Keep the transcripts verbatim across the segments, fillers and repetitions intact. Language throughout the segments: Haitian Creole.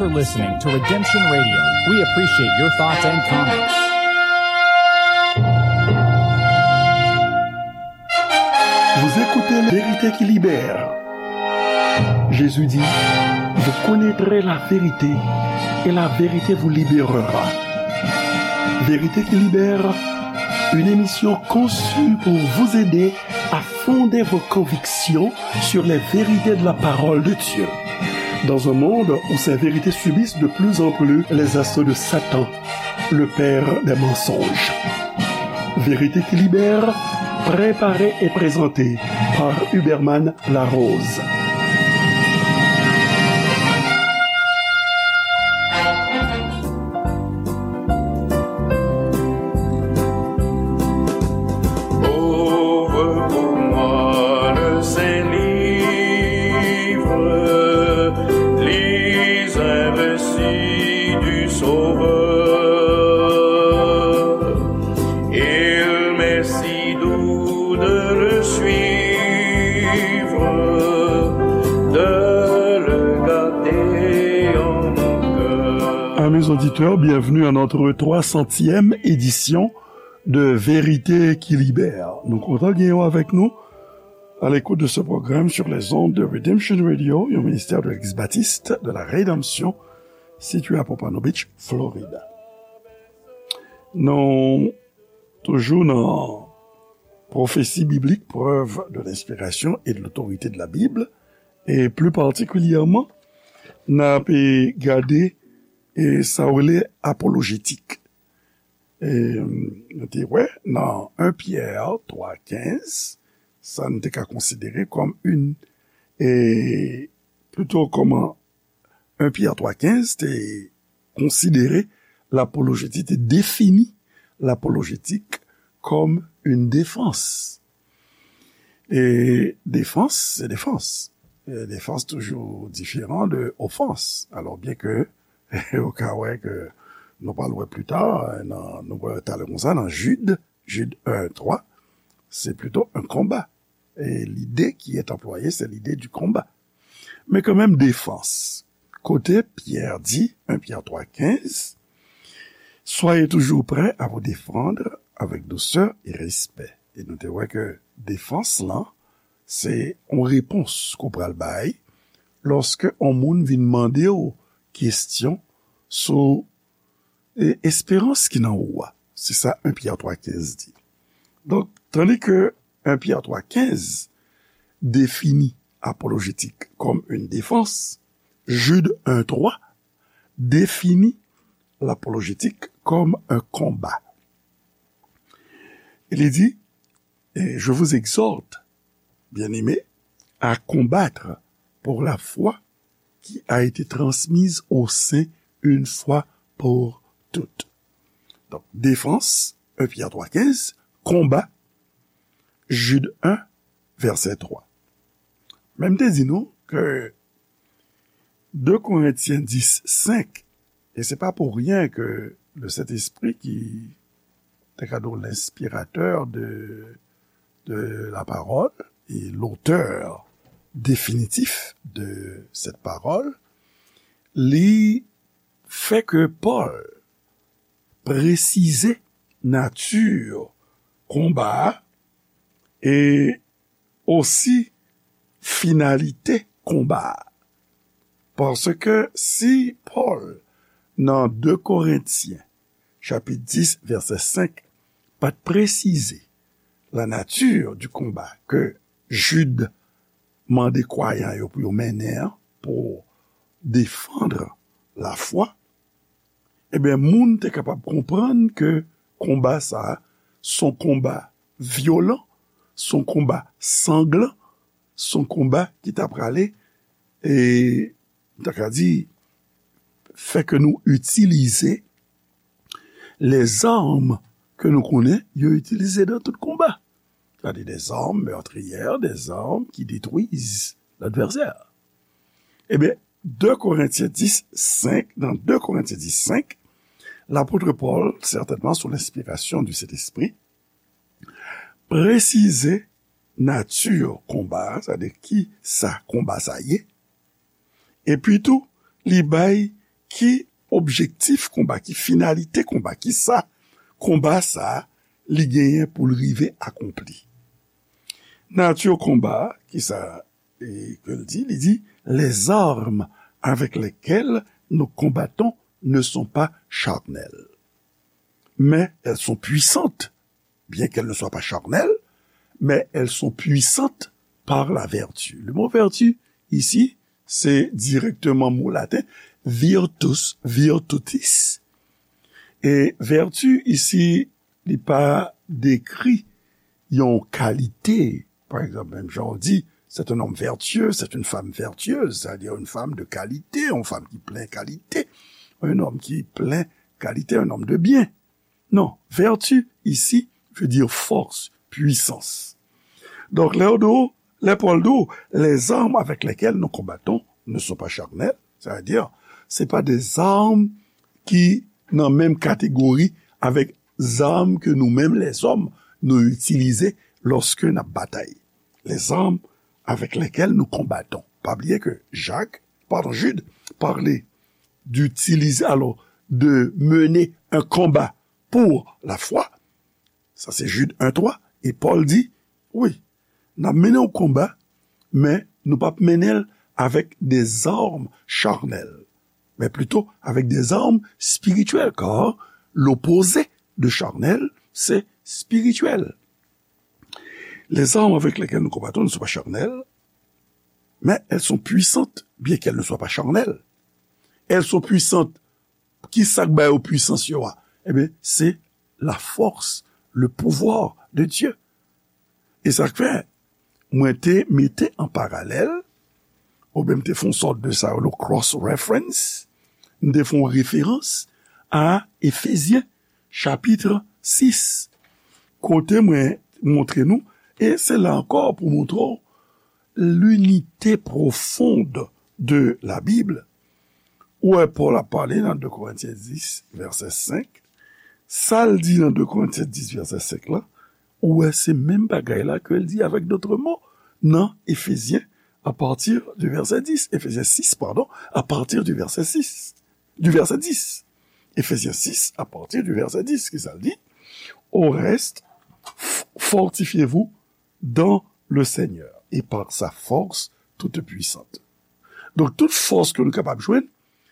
for listening to Redemption Radio. We appreciate your thoughts and comments. Vous écoutez La Vérité qui libère. Jésus dit, vous connaîtrez la vérité et la vérité vous libérera. Vérité qui libère, une émission conçue pour vous aider à fonder vos convictions sur les vérités de la parole de Dieu. Dans un monde où ces vérités subissent de plus en plus les assauts de Satan, le père des mensonges. Vérité qui libère, préparée et présentée par Huberman Larose. Ouvre pour moi le Saint Livre, lis un récit du Sauveur. Il m'est si doux de le suivre, de le garder en mon cœur. Amis auditeurs, bienvenue à notre trois centième édition de Vérité qui Libère. Nou kontan gen w avèk nou à l'écoute de ce programme sur les ondes de Redemption Radio, un ministère de l'Église baptiste de la Rédemption, situé à Pompano Beach, Florida. Nou toujou nan pwofesi biblik, preuve de l'inspiration et de l'autorité de la Bible, e pli patikilyèman, n ap gade e sa yo rele apolojetik. E, nou te wè nan en Pyè twa kenz, sa n te ka konsidere kòm yon, e, plito kòman en Pyè twa kenz te konsidere lapolojetik, te defini lapolojetik kòm yon defans. E defans, se defans. E defans toujou diferan de ofans. Alò, byen ke ou ka wè ke nou pral wè pli ta, nan, nou wè talè konsa, nan Jid, Jid en twa, se plito un combat. E lide ki est employé, se lide du combat. Men kanmenm, defans. Kote Pyè di, en Pyè twa kenz, soyez toujours prêts à vous défendre avec douceur et respect. E nou te wè ke defans lan, se yon repons ke w pral bay lòske yon moun vin mande w kesyon sou, e, esperans ki nan ou a. Se sa en Pyè twa kenz di. Donk, tandi ke en Pyè twa kenz defini apolojetik kòm yon defans, Jid en twa defini lapolojetik kòm un combat. E li di, et je vous exhorte, bien-aimés, à combattre pour la foi qui a été transmise aux saints une fois pour toutes. Donk, defans, en Pyè twa kenz, konba, Jid en, vèsè twa. Men m te di nou ke de Korentyen dis senk, e se pa pou ryen ke le Sentespri ki te ka di w l'inspirateur de, de la parole et l'auteur définitif de cette parole, li fè ke Pòl presize nati konba a e osi finalite konba a. Paske si Pòl, nan de Korentyen, chapit dis, vèsè senk, pa t presize la nature du combat ke Jid mande kwayan yo pou yo mennen an, pou defann lafwa, ebyen, moun te kapab konprann ke konba sa a, s on konba vyolan, s on konba sanglan, s on konba ki ta prale, e, m ta ka di, fè ke nou itilize lèzam ke nou konnen yo itilize nan tout konba. Sètadi dèzam mètriyè, dèzam ki detwiz ladvèsè. Ebyen, de Korentyen dis senk, nan de Korentyen dis senk, lapot Pòl, sètènman sou lenspirasyon di Sentespri, presize nati konba a, sètadi ki sa konba sa ye, epi tou, li bay ki objektif konba, ki finalite konba, ki sa konba sa a li genyen pou l rive akonpli. Nati konba a, ki sa e, ke l di, li di, les armes avec lesquelles nous combattons ne sont pas charnelles, mais elles sont puissantes, bien qu'elles ne soient pas charnelles, mais elles sont puissantes par la vertu. Le mot vertu, ici, c'est directement mot latin, virtus, virtutis. E vertu, ici, li pa dekri yon kalite. Pa egzanp, menm jan w di, c'est un homme vertueux, c'est une femme vertueuse, c'est-à-dire une femme de qualité, une femme qui plein qualité, un homme qui plein qualité, un homme de bien. Non, vertu ici veut dire force, puissance. Donk, lè yo di w, lè Pòl di w, les armes avec lesquelles nous combattons ne sont pas charnelles, c'est-à-dire, se pa de zam ki nan menm kategori avèk zam ke nou menm lèzòm nou itilize lòske n ap batay. Les armes avec lesquelles nous combattons. Pa bliye ke Jak, pardon, Jid, pale d'utiliser, alors, de mener un combat pour la foi. Sa se Jid en twa. E Pòl di, wi, n ap mennen yon konba, men nou p ap mennen l avèk de zam charnèl, men plito avèk de zam espirityèl, kar l'opposé de charnel, c'est spirituel. Les armes avec lesquelles nous combattons ne sont pas charnelles, mais elles sont puissantes, bien qu'elles ne soient pas charnelles. Elles sont puissantes. Ki sa k ba yo pwisans yo a? Ebyen, se la force, le pouvoir de Dieu. E sa k fè, mwen te mete an paralèl, oubyen m te fè yon sòt de sa yo, le cross reference, m te fè yon referans a Efezyen, chapit sis, kote mwen montre nou, e se la ankò pou montre w l'unité profonde de la Bible. Ou wè Pòl ap pale nan de Korentyen dis, vèsè senk. Sa l di nan de Korentyen dis, vèsè senk la, ou wè se menm bagay la ke l di avec d'autres mots nan Efezyen, à partir du verset dix, Efezyen sis, pardon, à partir du verset six, du verset dix. Efezyen sis, à partir du verset dix, ki sa l di? Au reste, f-, fortifiez-vous dans le Seigneur et par sa force toute puissante. Donk, tout fòs ke nou kapab jwenn,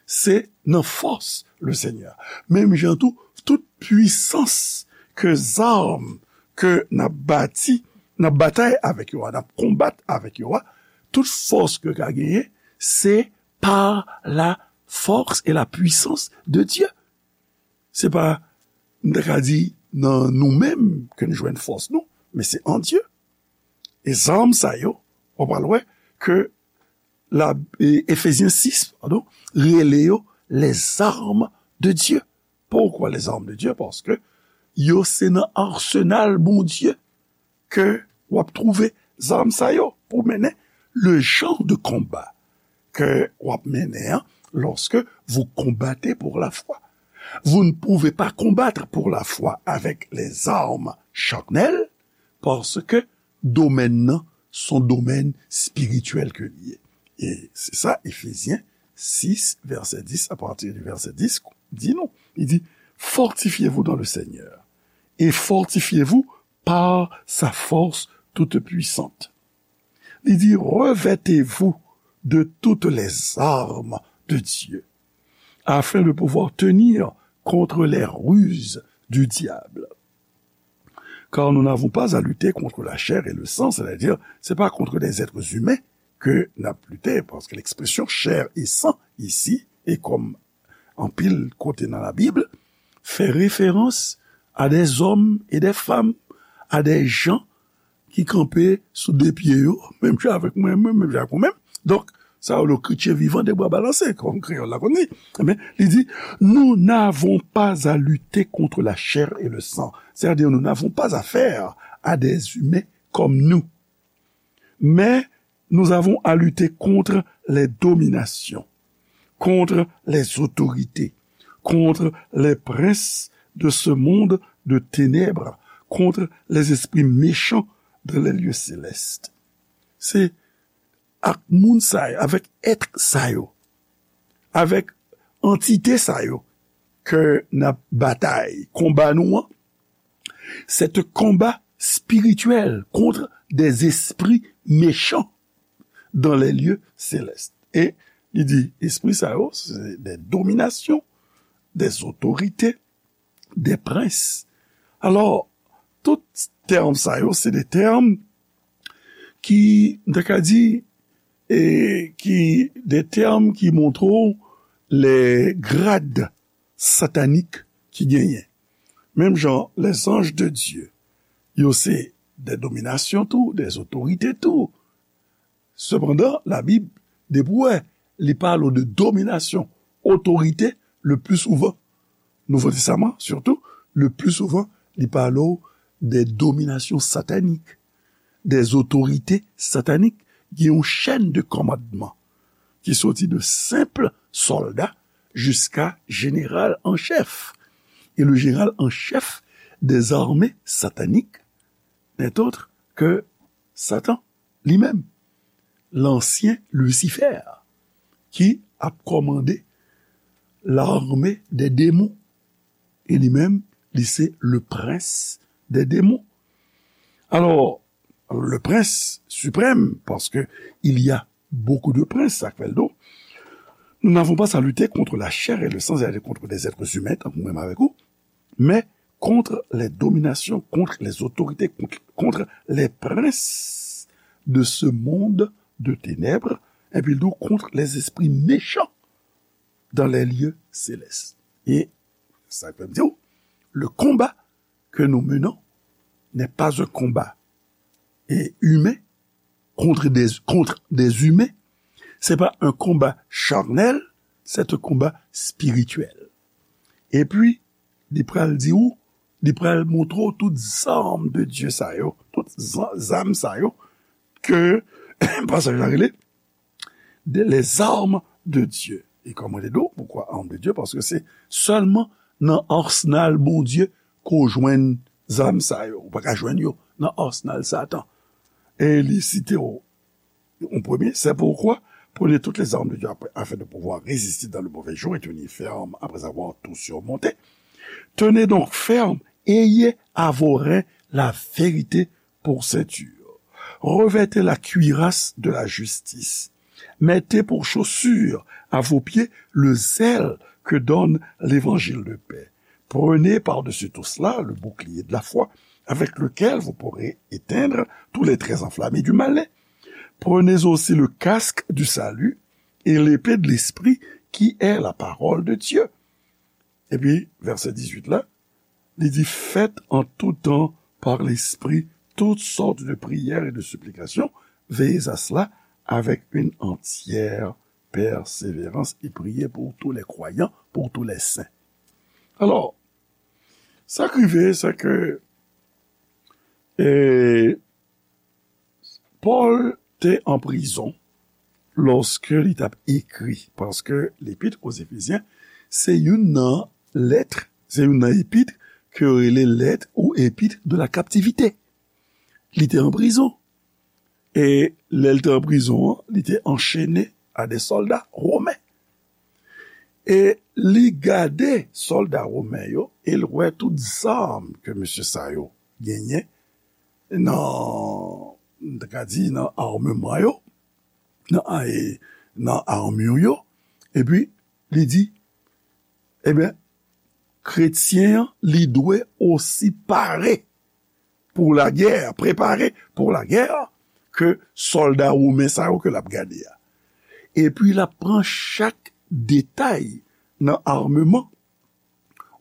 se nan force le Seigneur. Menm jan tou, tout pwisans ke zam ke n ap bati, n ap batay avèk yo a, n ap konbat avèk yo a, tout fòs ke ka genyen, se par la force et la puissance de Dieu. Se pa, m ta ka di, nan nou menm ke n jwenn fòs nou, men se an Dye. E zam sa yo, w pral wè ke la, e, Efezyen sis, padon, rele yo les armes de Dieu. Poukwa les armes de Dieu? Paske yo se nan arsenal Bondye ke w ap twouve zam sa yo pou mennen le jan de konba ke w ap mennen an lorsque vous combattez pour la foi. Vous ne pouvez pas combattre pour la foi avec les armes charnelles, paske domèn nan se yon domèn espirityèl ke li ye. E se sa Efezyen sis, vèsè dis, à partir du verset dix, di nou. Li di, fortifiez-vous dans le Seigneur et fortifiez-vous par sa force toute puissante. Li di, revêtez-vous de toutes les armes de Dieu, afin de pouvoir tenir contre les ruses du diable. Car nous n'avons pas à lutter contre la chair et le sang, c'est-à-dire, c'est pas contre des êtres humains que n ap lite, paske l'expression chair et sang ici, e kòm anpil kote nan Labib, fè referans a des hommes et des femmes, a des gens ki kanpe sou de pye yo, menm jan avèk mwen, mwen, menm jan avèk ou menm. Donk, sa yo, le chrétien vivant, de bras balancés, kòm kreyòl la konn di. Ebyen, li di, nous n'avons pas à lutter contre la chair et le sang. C'est-à-dire, nous n'avons pas affaire à des humains comme nous. Mais nous avons à lutter contre les dominations, contre les autorités, contre les princes de ce monde de ténèbres, contre les esprits méchants dans les lieux célestes. Se ak moun sa yo, avèk èt sa yo, avèk antite sa yo ke n ap batay, konba nou an, c'est un combat spirituel contre des esprits méchants dans les lieux célestes. E li di, espri sa yo, se de dominasyon, de otorite, de prens. Alò, tout tèm sa yo, se de tèm ki, m ta ka di, e ki de tèm ki montre w le grad satanik ki genyen. Menm jan, les anges de Dieu, yo se de dominasyon tou, de otorite tou. Sepandan, Labib, depi w wè, li pale w de dominasyon, otorite, le pli souvan, Nouvo Testaman, sitou, le pli souvan, li pale w de dominasyon satanik, de otorite satanik. Gen yon chèn de kòmandman ki soti de senp sòlda jiska jeneral an chèf. E le jeneral an chèf des armées sataniques n'est autre que Satan li menm, lansyen Lisifè, ki ap kòmande lame dè demon. E li menm, li se le prens dè demon. Alò, le prens siprèm, paske il y a beaucoup de princes, sa k fè l do. Nous n'avons pas à lutter contre la chair et le sang, c'est-à-dire contre des êtres humains, tankou mwen menm avèk ou, mais contre les dominations, contre les autorités, contre, contre les princes de ce monde de ténèbres, epi l di w, contre les esprits méchants dans les lieux célestes. E sa k fè m di w, le combat que nous menons n'est pas un combat, et humain contre des, contre des humains. C'est pas un combat charnel, c'est un combat spirituel. Epi, li pral di w, li pral montre w tout zam de Dye sa yo, tout za-, zam sa yo, ke pasaj la rele de, les armes de Dieu. E kòman te di w, poukwa armes de Dieu? Paske se sèlman nan arsenal Bondye ke w jwenn zam sa yo. Ou pa ka jwenn yo nan arsenal Satan. E li site w, en premier, c'est pourquoi prenez toutes les armes de Dieu après, afin de pouvoir résister dans le mauvais jour et tenir ferme après avoir tout surmonté. Tenez donc ferme, ayez à vos reins la vérité pour ceinture. Revêtez la cuirasse de la justice. Mettez pour chaussure à vos pieds le zèle que donne l'évangile de paix. Prenez par-dessus tout cela le bouclier de la foi, avec lequel vous pourrez éteindre tous les traits enflammés du malin. Prenez aussi le casque du salut et l'épée de l'esprit qui est la parole de Dieu. Epi, vèsè dizuit la, li di, faites en tout temps par l'esprit toutes sortes de prières et de supplications, veillez à cela avec une entière persévérance et priez pour tous les croyants, pour tous les saints. Alò, sa k rive, se ke, e, Pòl te an prizon lòske li t ap ekri, paske Lepit o Zefezyen se youn nan lèt, se youn nan epit ke yo rele lèt ou epit de la kaptivite. Li te an prizon. E lè l te an prizon an, li te anchene a de sòlda women. E li gade sòlda women yo, e l wè tout zam ke mesye sa yo genyen nan, m ta ka di, nan ameman yo, nan, e, nan armure yo. Epi, li di, ebyen, kretyen an, li dwe osi pare pou lagè, prepare pou lagè, ke sòlda women sa yo ke l ap gade a. Epi l ap pran chak detay nan ameman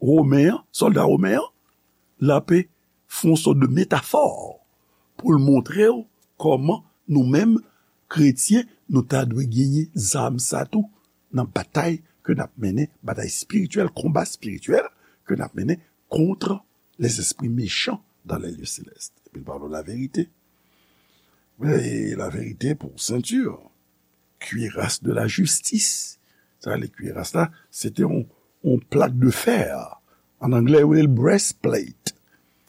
women an, sòlda women an, l ape fè yon sòt de metafò pou l montre w kòman nou menm, kretyen, nou ta dwe genyen zam sa tou nan batay ke n ap mennen, batay espirityèl, konba espirityèl ke n ap mennen contre les esprits méchants dans les lieux célestes. Epi l pale w laverite. E laverite pou senti. Cuirasse de la justice. Sa, le cuirasse la, se te yon, yon plak de fè. An anglè, yo rele l breastplate.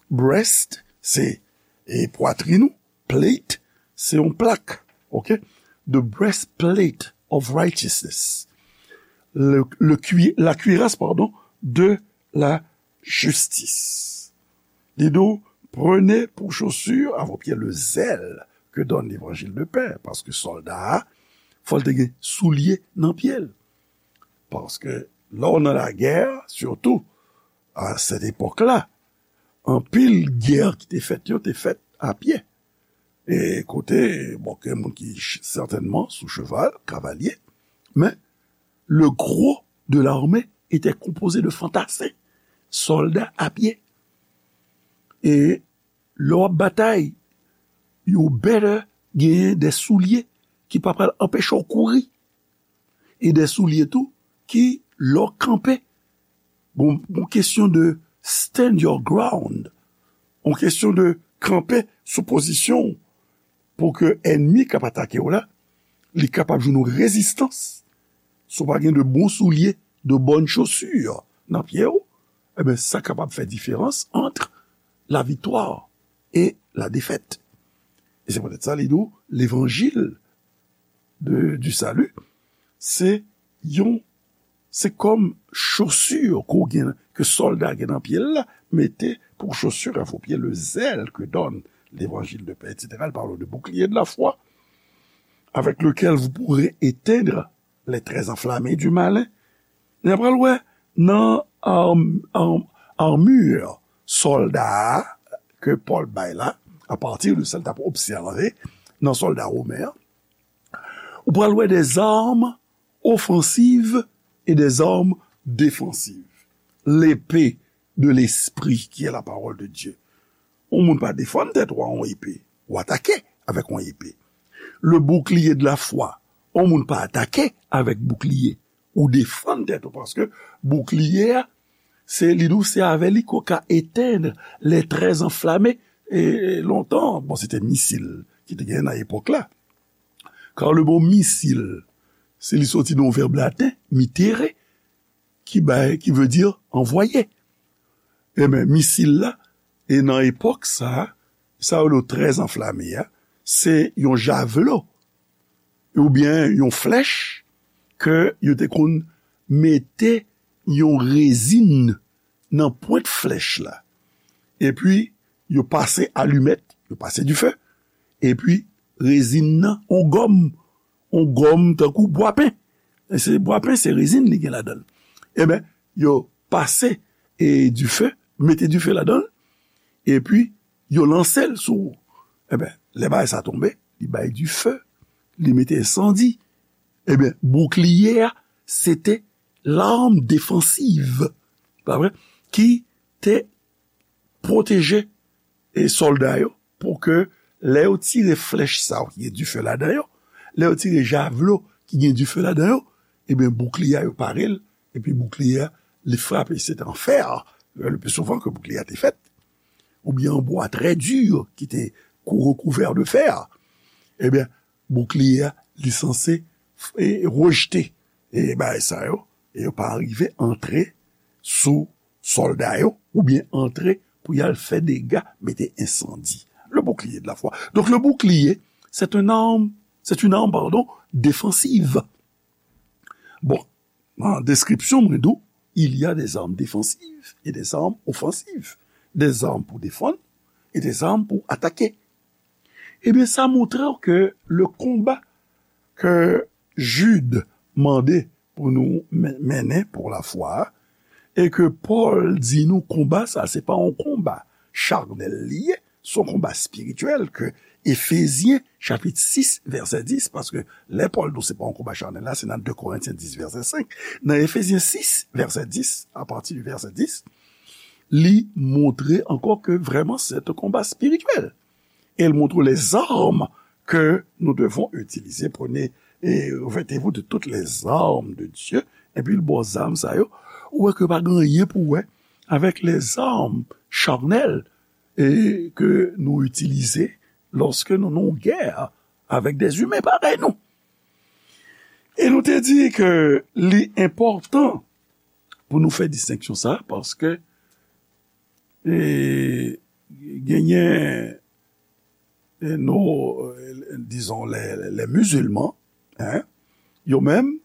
Breast, se, e, pwatrin ou. Plate, se yon plak. Ok? The breastplate of righteousness. le, le cui- la cuirasse, pardon, de la justice. Li di w, prenez pour chaussure à vos pieds le zèle que donne l'évangile de paix, paske sòlda a, fò l te gen soulye nan pye l. Paske lè w nan lagè, sitou a sèt epòk la, anpil gè ki te fèt yo te fèt a pye. E kote, bon, gen moun ki ch- sètènman sou cheval, kavalye, men le gros de l'armée était composé de fantassins, sòlda a pye. E lè w ap batay, you better genyen de soulye ki pa pral anpeche w kouri. E de soulye tou ki, lè w kanpe, bon, bon kesyon de stand your ground, bon kesyon de kanpe sou pozisyon w pou ke ènmi k ap atake w la, li kapab jwenn yon rezistans. Si w pa gen de bon soulye, de bonnes chaussures nan pye w, ebyen, sa kapab fè diferans ant la viktwa e la defèt. E se poutèt sa, li di w, levanjil de, du salut, se yon, se kòm chaussure ke w gen, ke sòlda gen nan pye l la, mettez pour chaussure à vos pieds le zèle que donne l'évangile de paix, et cetera. Il parle de bouclier de la foi, avec lequel vous pourrez éteindre les traits enflammés du malin. N ap pral wè nan arm, arm, armure sòlda a ke Pòl bay la, apati de sa l t ap obsève nan sòlda women an, ou pral wè des armes offensives et des armes défensives. L'épée de l'esprit qui est la parole de Dieu. Yon moun pa defann tèt ou a yon epe. Ou atake avèk yon epe. Le bouclier de la foi. Yon moun pa atake avèk boukliye. Ou defann tèt ou paske boukliye a, se li di w se avè li ke w ka etenn les traits enflammés. E lontan, bon, se te misil ki te genyen nan epòk la. Car le mot missile, se li soti nan yon vèb laten, mittere, ki bay, ki vle di anvwaye. Ebyen, misil la, e nan epòk sa, sa yo le très enflammé a, se yon javlo, oubyen yon flèch ke yo te konn mete yon rezin nan pwent flèch la. Epi, yo pase alimèt, yo pase dife, epi rezin nan, yon gòm, yon gòm tankou bwapen. E se bwapen, se rezin li gen ladan l. Ebyen, yo pase e dife, mete dife ladan l, epi yo lanse l sou ou. Ebyen, lè bagay sa tonbe, li bay dife, li mete ensandi. Ebyen, boukliye a, se te l'arme défensive, pa vre? Ki te pwoteje e sòlda yo pou ke lè yo tire flèch sa yo ki gen dife ladan yo, lè yo tire javlo ki gen dife ladan yo, ebyen, boukliye a yo pare l, epi boukliye a, li frape, se te an fè, le pli souvan ke boukliye a te fèt, oubyen an bwa trè di ki te kou- rekouvè de fè, ebyen, boukliye a, li sanse f- e, rejte e bagay sa yo, e yo pa rive antre sou sòlda yo, oubyen antre pou y al fè dega, mete ensandi. Le bouclier de la foi. Donc, le bouclier, c'est un arme, c'est une arme, pardon, défensive. Bon, nan deskripsyon mwen di w, il y a des armes défensives et des armes offensives. Des armes pou defann e des armes pou atake. Ebyen, sa montre w ke le konba ke Jid mande pou nou men- mennen pou lafwa a, e ke Pòl di nou konba sa, se pa yon konba chanèl li ye, se yon konba espirityèl ke Efezyen chapit sis vèsè dis, paske lè Pòl di w se pa yon konba chanèl la, se nan de Korentyen dis vèsè senk. Nan Efezyen sis vèsè dis, apati de vèsè dis, li montre ankò ke vrèman se te konba espirityèl. E l montre w les armes que nous devons utiliser. Prenez et revêtez-vous de toutes les armes de Dieu. Epi l ba w zam sa yo, ou wè ke pa gen anyen pou wè avèk les armes charnelles e ke nou itilize lòske nou nan yon gè avèk des humains parèy nou. E nou te di ke li enpòtan pou nou fè distenksyon sa, paske e, genyen e, nou, e, dizon, les, les musulmans, hein, yo menm,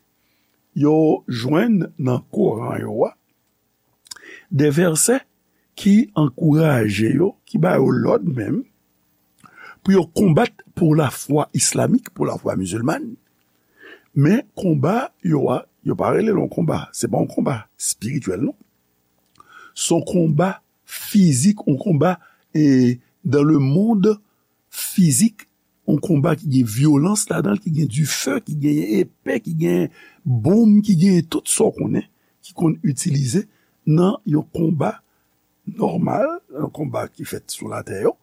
yo jwenn nan Koran yo a de vèsè ki ankouraje yo, ki ba yo lòd menm, pou yo konbat pou lafwa islamik, pou lafwa mizilman. Men konba yo a, yo pa rele l yon konba. Se pa yon konba espirityèl, non. Se yon konba fizik, yon konba, e, dans le monde fizik, yon konba ki gen vyolans ladan l, ki gen dife, ki gen epe, ki gen bonm, ki gen tout sa w konnen, ki konn itilize nan yon konba nòmal, yon konba ki fèt sou latè yo.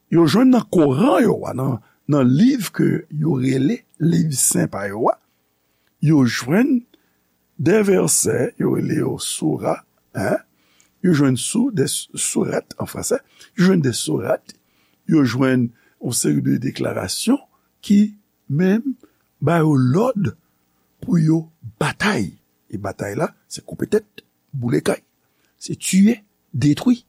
Yo jwenn nan Koran yo a, nan, nan liv ke yo rele liv sen pa yo a, yo jwenn de vèsè, yo rele yo soura, en, yo jwenn sou, de s-, sourat an fransè, yo jwenn de sourat, yo jwenn yon seri de deklarasyon ki menm ba yo lòd pou yo batay. E batay la, se koupe tèt, boule kay. Se tiye, detwi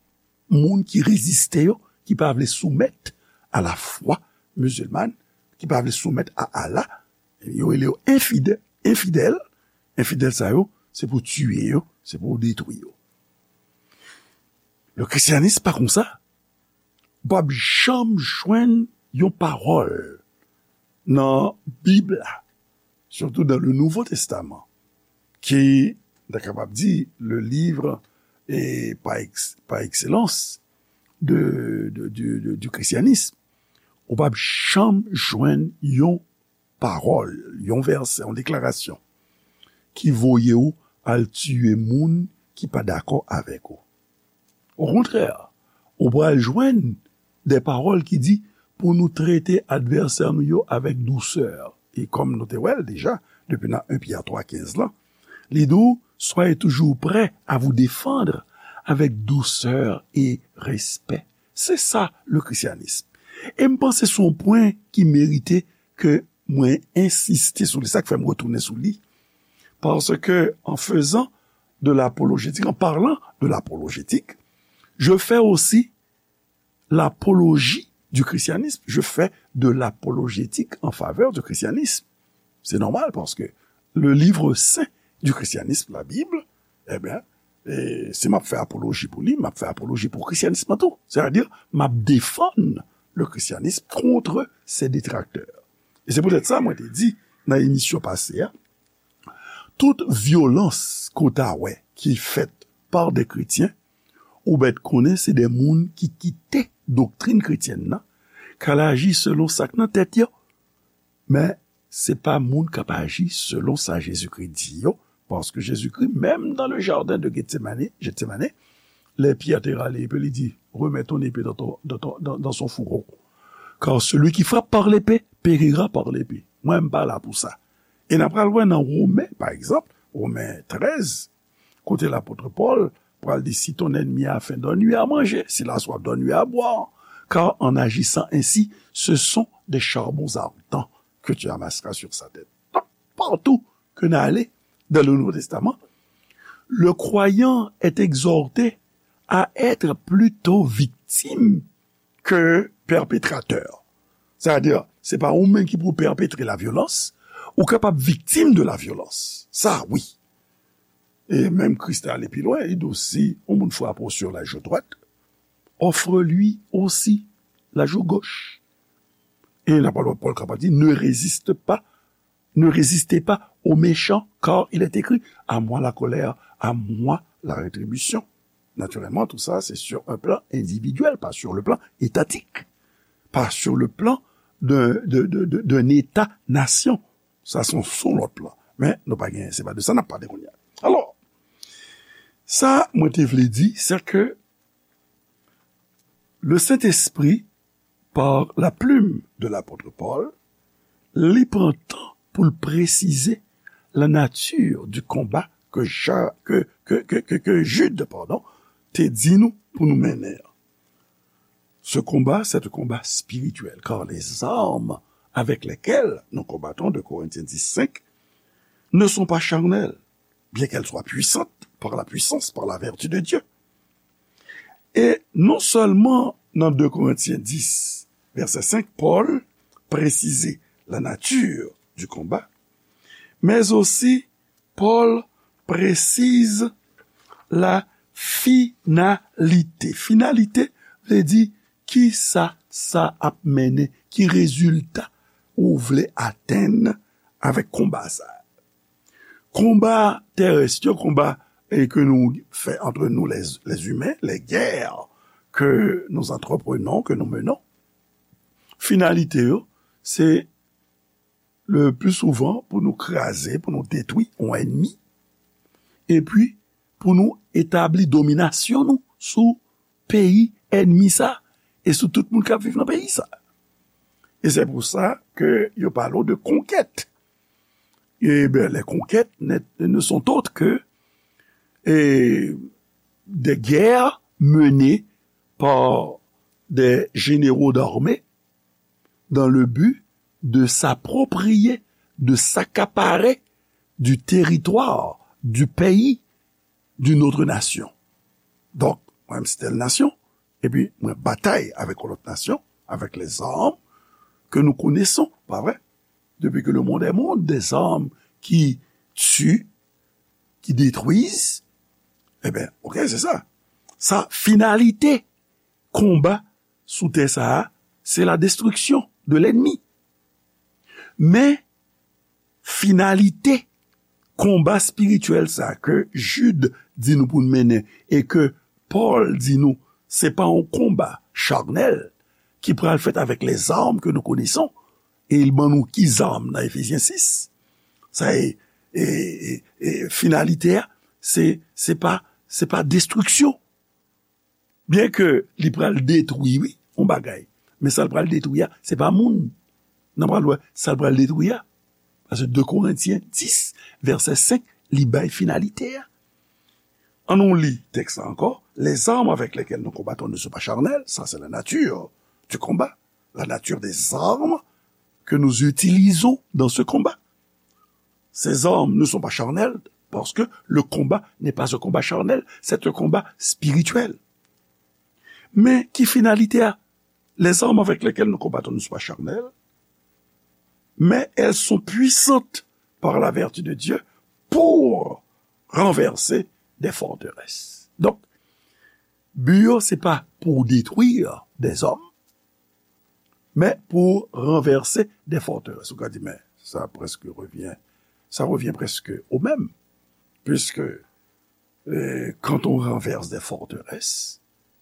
moun ki reziste yo, ki pa vle soumèt a lafwa mizilman, ki pa vle soumèt a Allah. Yo rele yo enfidè-, enfidèl. Enfidèl sa yo, se pou tiye yo, se pou detwi yo. Le christianisme pa konsa. W p ap janm jwenn yon pawòl nan Bib la, surtout dans le Nouveau Testament, ki, n ta kapab di, le livre, e, par ex-, par excellence de, de, de, de, du christianisme. Ou p ap janm jwenn yon pawòl, yon vèsè, yon deklarasyon ki voye w al tiye moun ki pa dakò avèk ou. Okontrè, ou pral jwenn de pawòl ki di pou nou trete advèsè nou yo avèk dousè. E kòm nou te wè l deja, depi nan en Pyè twa kenz lan, li di w, soyez toujours prêts à vous défendre avec douceur et respect. Se sa, le christianisme. E m panse se yon pwen ki merite ke mwen ensiste sou li. Sa k fè m retounen sou li. Parce que en faisant de l'apologétique, en parlant de l'apologétique, je fais aussi l'apologie du christianisme. Je fais de l'apologétique en faveur du christianisme. C'est normal parce que le livre saint du christianisme, la Bible, eh bien, e si m ap fè apoloji pou li, m ap fè apoloji pou christianisme an tou. C'est-à-dire, m ap défendre le christianisme contre ses détracteurs. E se poutèt sa, mwen te di nan emisyon pase a, tout vyolans ke w ta wè ki fèt par des chrétiens, ou mèt konnen se de moun ki kite doktrin kretyèn nan, k al aji selon sa k nan tèt yo. Men, se pa moun k ap aji selon sa Jezikri di yo, paske Jezikri, menm dans le jardin de Gethsemane, Gethsemane, lè Pyè te rale epe li di, remets ton épée dans ton, dans ton, dans, dans son fourreau. Car celui qui frappe par l'épée périra par l'épée. Mwen, m pa la pou sa. E n ap pral wè nan Women, pa egzanp, Women trèz, kote lapot Pòl pral di, si ton ennemi a faim, donne-lui à manger, s'il a soif, donne-lui à boire, car en agissant ainsi, ce sont des charbons ardents que tu amasseras sur sa tête. Donk, partou ke n ale dans le Nouveau Testament, le croyant est exhorté à être plutôt victime ke pèpetratè. Sètadi, se pa ou menm ki pou pèpetre la vyolans, ou kapab viktim de la vyolans. Sa, wi. E menm Kris te ale pi lwen, li di w, si yon moun frape w sur la joue droite, offre-lui aussi la joue gauche. E lapot Pòl kapab di, ne résiste pas Ne résistez pas au méchant, car il est écrit, à moi la colère, à moi la rétribution. Naturellement, tout ça, c'est sur un plan individuel, pas sur le plan étatique, pas sur le plan d'un, de, de, de, d'un État-nation. Sa, se yon, se yon lòt plan. Men, nou pa gen, se pa de sa n ap pale kounye a. Alò, sa, mwen te vle di, se ke le Saint-Esprit, par la plume de l'apôtre Paul, li pran tan pou l presize la nature du combat que Ja-, que, que, que, que, que Jude, pardon, te di nou pou nou mennen an. Ce combat, c'est un combat spirituel, car les armes avec lesquelles nous combattons, deux Corinthiens dix cinq, ne sont pas charnelles, bien qu'elles soient puissantes par la puissance, par la vertu de Dieu. E non sèlman nan de Korentyen dis, vèsè senk, Pòl presize la nature du combat, mais aussi Pòl presize la finalite. Finalite vle di ki sa sa ap mennen, ki rezilta ou vle atenn avèk konba sa. Konba terès yo, konba e ke nou fè antre nou lè imen, lè gè ke nou antreprenon, ke nou menon, finalite yo, se le pli souvan pou nou kraze, pou nou detwi yon ènmi, epi pou nou etabli dominasyon nou sou peyi ènmi sa, e sou tout moun k ap viv nan peyi sa. E se pou sa ke yo pale w de konkèt. E ben, les conquêtes ne, ne sont autres que eh, des guerres menées par des généraux d'armée dans le but de s'approprier, de s'accaparer du territoire, du pays d'une autre nation. Donk, mwen menm se tèl nasyon, epi mwen batay avèk yon lòt nasyon, avèk lèzam ke nou koneson, pa vre? Depuis que le monde est monde, des armes qui tuent, qui détruisent, e ben, ok, se sa. Sa, finalite konba sou tè sa a, se la destriksyon de lènmi. Men, finalite konba espirityèl sa ke Jid di nou pou n mennen e ke Pòl di nou se pa yon konba charnèl ki pral fèt avèk lèzam ke nou koneson, e l ban nou ki zam nan Efezyen sis. Sa e, e, e, e finalite a, se, se pa, se pa destriksyon. Byen ke li pral detwi, wi, yon bagay. Men sa l pral detwi a, se pa moun. N a pral wè sa l pral detwi a. Paske de Korentyen dis, vèsè senk, li bay finalite a. Ann nou li tèks la ankò. Les armes avec lesquelles nous combattons ne sont pas charnelles, ça c'est la nature du combat, la nature des armes que nous utilisons dans ce combat. Ces armes ne sont pas charnelles, parce que le combat n'est pas un combat charnel, c'est un combat spirituel. Men ki finalite a? Les armes avec lesquelles nous combattons ne sont pas charnelles, mais elles sont puissantes par la vertu de Dieu pour renverser des forteresses. Donk, bi yo se pa pou detwi dèzòm, men pou ranvèse de fòterès. Ou ka di, men sa preske revyen, sa revyen preske o menm, puiske eh, quand on renverse des forteresses,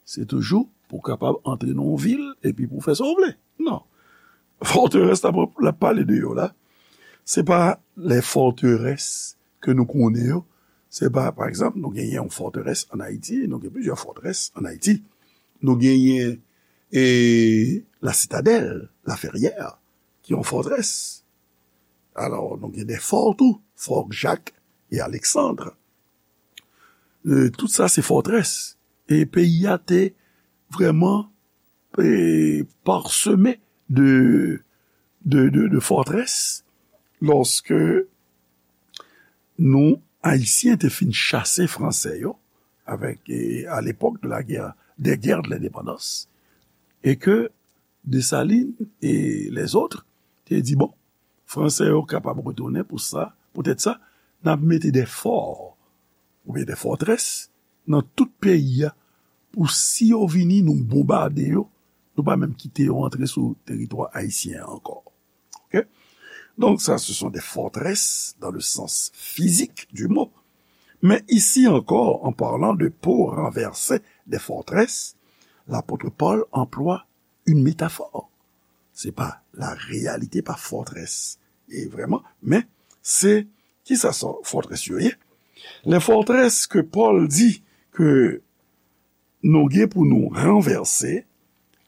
se toujou pou kapab antre nan yon vil epi pou fè sa w vle. Non. Fòterès la, la pale de yo la, se pa lè fòterès ke nou konnen yo. Se pa, pa egzanp, nou genyen yon fòterès an Ayiti, nou gen plizyè fòterès an Ayiti. Nou genyen e, La Citadelle, La Ferrière, ki yon fòterès. Alò, nou gen de fò tou, Fort Jacques et Alexandre. E, tout sa se fòterès. E peyi a te vrèman e, parseme de, de, de, de fòterès lòske nou, Ayisyen, te fin chase Fransè yo avèk, e, à l'époque de la guerre, des guerres de l'indépendance, e ke Desalin e lèzòt te di, bon, Fransè yo kapab retounen pou sa, poutèt sa, n ap mete de fò oubyen de fòterès nan tout peyi a pou si yo vini, nou bonbade yo, nou pa menm kite yo antre sou teritwa ayisyen an ankò. Ok? Donc ça, ce sont des forteresses dans le sens physique du mot. Mais ici encore, en parlant de pour renverser des forteresses, l'apôtre Paul emploie une métaphore. Se pa la réalité, pa fòterès. E vrèman, men se ki sa sa fòterès yo ye? Les forteresses que Paul dit que nou gen pou nou ranvèse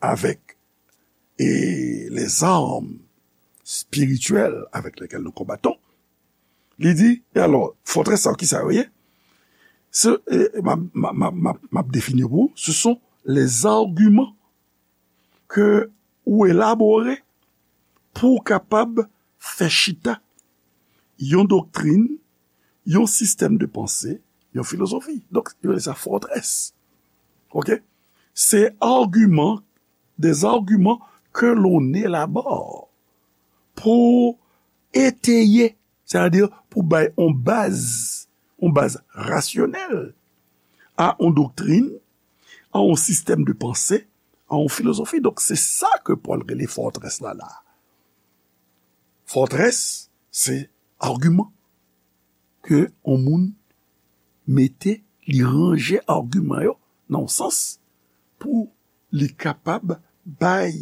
avec et les armes spirituelles avec lesquelles nous combattons, li di, e alò, fòterès sa yo, ki sa yo ye? Se, e, m ap, m ap, m ap, m ap, m ap defini pou ou, ce sont les arguments ke ou elabore pou w kapab fè chita yon doktrin, yon sistèm de panse, yon filozofi. Donk, yo rele sa fòterès. Ok? C'est argument, des arguments que l'on élabore pour étayer Sètadi pou bay yon baz, yon baz rasyonèl a yon doktrin, a yon sistèm de panse, a yon filozofi. Donk, se sa ke Pòl rele fòtrès la la. Fòtrès, se agiman ke yon moun mete, li ranje agiman yo nan yon sans pou li kapab bay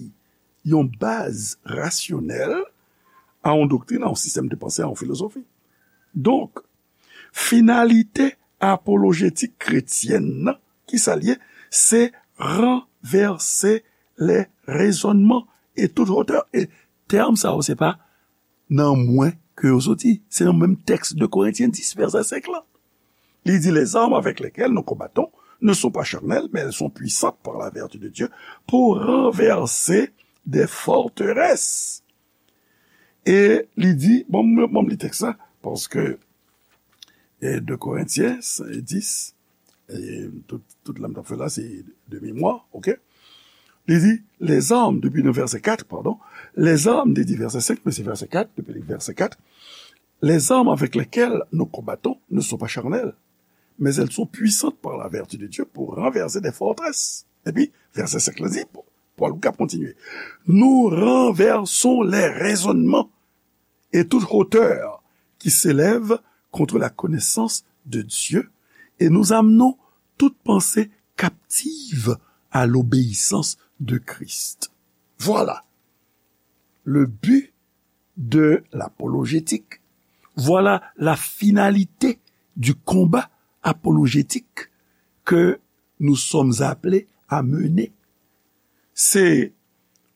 yon baz rasyonèl a yon doktrin, a yon sistèm de panse, a yon filozofi. Donk, finalite apolojetik kretyèn nan, ki sa l ye? Se ranvèse lè rezònman e tout hotè. E tèm sa yo, se pa nan mwen ke yo soti. Se nan menm tèks de Korentyen dis, vèsè senk lan. Li di, les armes avec lesquelles nous combattons ne sont pas charnelles, mais elles sont puissantes par la vertu de Dieu pour renverser des forteresses. E li di, bon, bon, li tèks la, paske e de Korentyen dis, e tout, tout la m t ap fè la, se de memwa, oke? Li di, les armes, depi nan vèsè kat, pardon, les armes, li di vèsè senk, men se vèsè kat, depi vèsè kat, les armes avec lesquelles nous combattons ne sont pas charnelles, mais elles sont puissantes par la vertu de Dieu pour renverser des forteresses. Epi, vèsè senk la di, Pòl k ap kontinye, nous renversons les raisonnements et toute hauteur qui s'élève contre la connaissance de Dieu, et nous amenons toute pensée captive à l'obéissance de Christ. Voilà le but de l'apologétique. Voilà la finalité du combat apologétique que nous sommes appelés à mener. C'est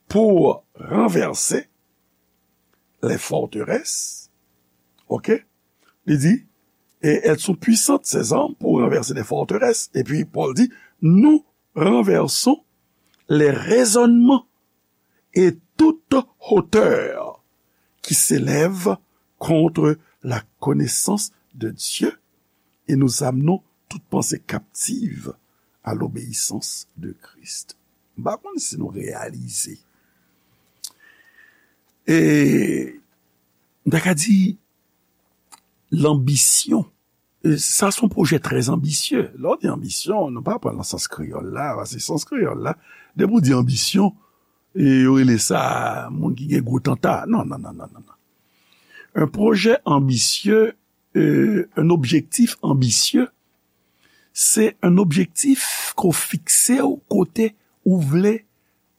pour renverser les forteresses, ok? Li di, et elles sont puissantes, ces armes, pour renverser des forteresses. Et puis Paul dit, nous renversons les raisonnements et toute hauteur qui s'élève contre la connaissance de Dieu, et nous amenons toute pensée captive à l'obéissance de Christ. M pa konn si nou reyalize. E, m ta ka di, lanbisyon. E sa se yon pwojè trè anbisye. Lè w di anbisyon, nou pa pran l nan sans kreyòl la, paske sans kreyòl la, depi w di anbisyon, e yo rele sa moun ki gen gwo tanta. Non, non, non, non, non, non. Un projet ambitieux, euh, un objectif ambitieux, se un objectif ke w fikse w kote ou vle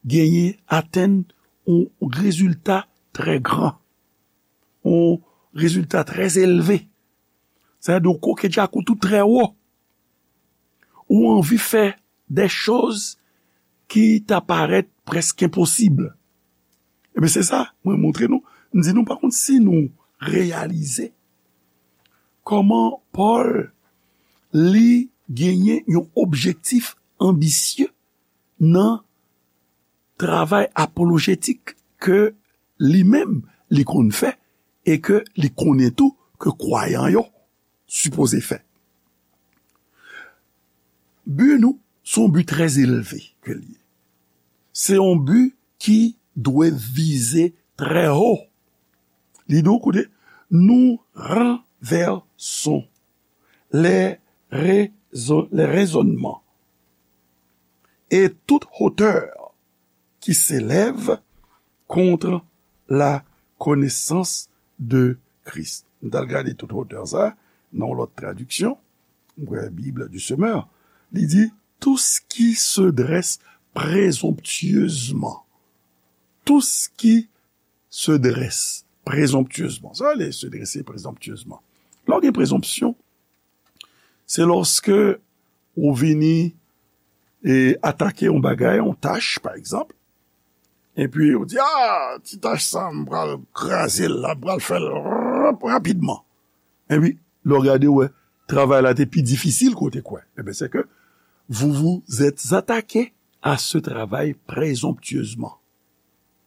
genyen, atenn yon rezilta trè gran, yon rezilta trè elve. Sa vle di w koke djakout ou trè wo. Ou anvi fè de choz ki ta parèt prèske enposib. Ebyen, se sa, mwen montre nou, m di nou, pa konn si nou reyalize kòman Pòl, li genyen yon objektif anbisye nan travay apolojetik ke li menm li konn fè e ke li konnen tou ke kwayan yo sipoze fè. Bi nou, se yon bi trè elve ke l ye. Se yon bi ki dwe vize trè wo. Li di w, koute, nous renversons les raisons, les raisonnements et toute hauteur qui s'élève contre la connaissance de Christ. M t al gade tout hotè sa nan yon lòt tradiksyon, m kwè Bible du Semeur, li di, tout ce qui se dresse présomptueusement. Tout ce qui se dresse présomptueusement. Sa vle se drese prezonptyezman. Lè w gen prezonpsyon, se lòske ou vini e atake yon bagay, yon tach, pa egzanp, epi ou di, ah, ti tach sa, m pral kraze l la, m pral fè l rap rapidman. Epi, lè w gade, w wè, travay la te pi difisil ke w te kwè. Ebyen, se ke vous vous êtes attaqué à ce travail présomptueusement.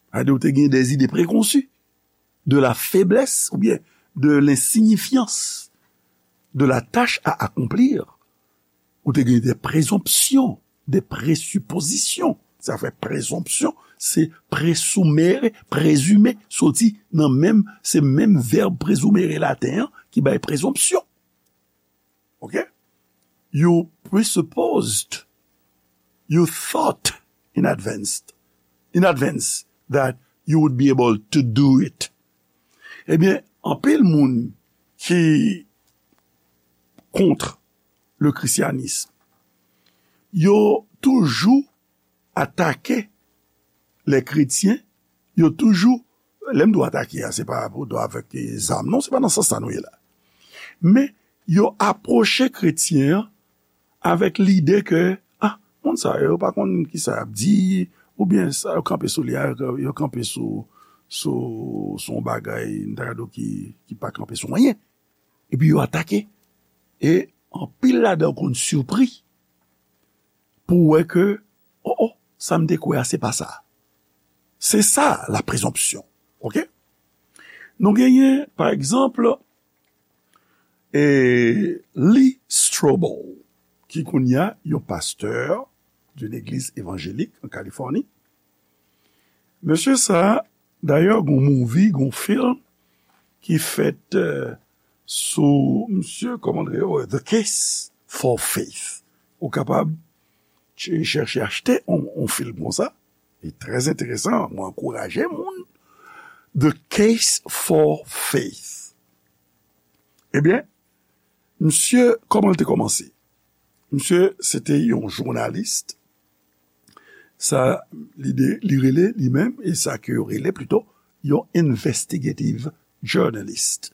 Sa vle di, ou te gen des idées préconçues de la faiblesse oubyen de l'insignifiance de la tâche à accomplir. Ou te gen des présomptions, des présuppositions. Sa fè prezonpsyon, se presumere, prezime, soti nan menm, se menm vèb presumere laten an ki bay prezonpsyon. Ok? You presupposed, you thought in advance, in advance that you would be able to do it. Ebyen, anpil moun ki kont le christianisme, yo toujou atake lè kretyen, yo toujou, lè m di w atake a, se pa pou do avèk zam, non, se pa nan sans sa nou ye la. Men, yo apwoche kretyen an avèk lide ke, ah, moun sa yo pa konn ki sa y ap di, oubyen sa yo kanpe sou li a, yo kanpe sou, sou, sou yon bagay, m ta ka di w ki, ki pa kanpe sou anyen. Epi yo atake. E anpil ladan yo konn sipri pou wè ke, oh, oh, sa m te kwè a, se pa sa. Se sa, la prezonpsyon. Ok? Nou genyen, pa egzanp, e, Lee Strobel, ki kounye a yon pastè d'une église évangélique en Californie. Mesye sa, dayè, gon movie, gon film ki fèt, euh, sou misye, kòman l rele, The Case for Faith. Ou kapab ch-, chèche achte on, on film konsa. Li trè enteresan, mwen ankouraje moun. The Case for Faith. Ebyen, misye, kòman l te kòmanse? Misye, se te yon jounalis. Sa, li de, li rele li menm, e sa ke yo rele plito, yon investigative journalist.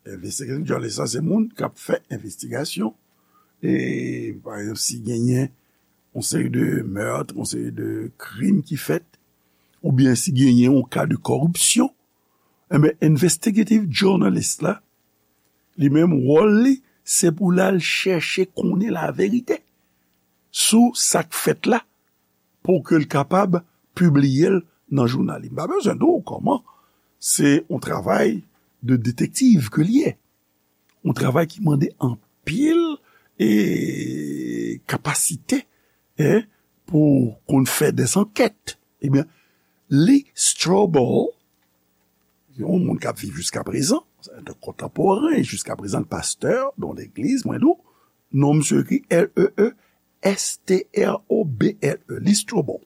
Investigative journalist, sa, se moun k ap fè envestigasyon. E, pa egzanp, si genyen yon seri de meurtre, yon seri de krim ki fèt, oubyen si genyen yon ka de kòripsyon, enben, investigative journalist la, li menm, wòl li, se pou l al chèche konnen laverite sou sa k fèt la, pou ke l kapab pibliye l nan jounal li. M pa bezwen di w kòman, se yon travay de detektiv ke l ye. Yon travay ki mande anpil, e, kapasite, en, pou konn fè des enquêtes. Ebyen, Lee Strobel, yon moun k ap viv jiska prezan, se yon kontanporen, jiska prezan, pastè, nan legliz, mwen di w, non misye ekri L E E S T R O B L E, Lee Strobel.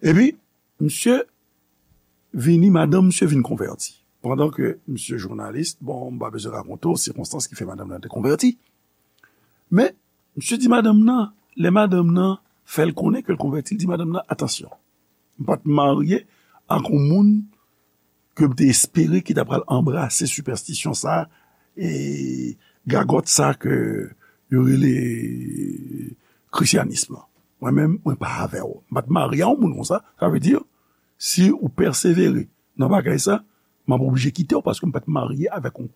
Epi, misye vini, madanm misye vin konvèti. Pandan ke misye jounalis, bon, m pa bezwen rakonte w sikonstans ki fè madanm nan te konvèti. Men, misye di madanm nan, lè madanm nan fè l konnen ke l konvèti, l di madanm nan, "Atansyon, m pa t marye ak yon moun ke m te espere ki ta pral anbrase sipèstisyon sa, e gagòt sa ke yo rele krisyanis lan. Mwen menm, mwen pa avè w. M pa t marye a yon moun konsa." Sa vle di, si ou pèsevere nan bagay sa, m ap oblije kite w paske m pa t marye avèk yon,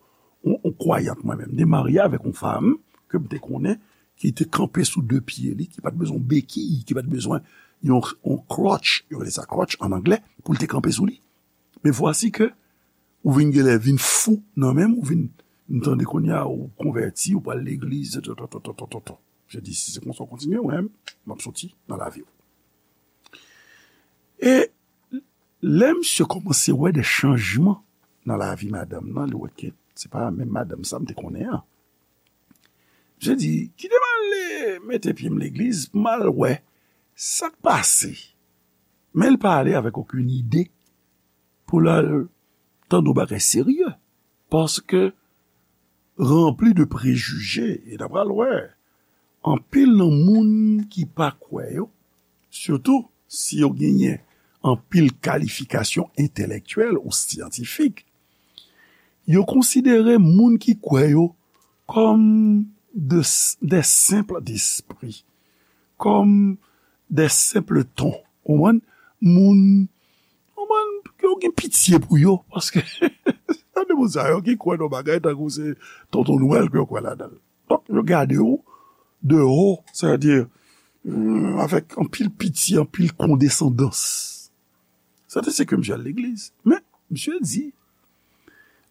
yon, yon kwayant mwen menm. M te marye avèk yon fanm ke m te konnen ki te kanpe sou de pye li, ki pa t bezwen bekiy, ki pa t bezwen yon, yon crutch, yo rele sa crutch an anglè, pou l te kanpe sou li. Men vwasi ke ou vin genlè vin fou nan men m, ou vin, m tande kounye a ou konvèti, ou pral legliz, to, to, to. Je di, si se konsa w kontinye, mwen, m ap soti nan lavi w. E lè misye kòmanse wè de chanjman nan lavi madanm nan, li wè ke se pa menm madanm sa m te konnen an. Misye di, "Kite m ale mete pye m legliz, m al wè sa k pase." Men l pa ale avèk okenn ide pou l al tande yon bagay serye. Paske ranpli de prejije, e n a pral wè, anpil nan moun ki pa kwè yo, sitou si yo genyen anpil kalifikasyon entelektyèl ou syantifik, yo konsidere moun ki kwè yo kòm de, de senp despri, kòm de senp ton. Ou konprann? Moun, ou konprann, yo gen pitye pou yo, paske sa de moun sa yo ki kwè nan bagay tankou se Tonton Nwèl ke yo kwè ladan l. Donk, yo gade w de wo, sètadi, mm, avèk anpil pitye, anpil kondesandans. Sa te se ke misye al legliz. Men, misye di,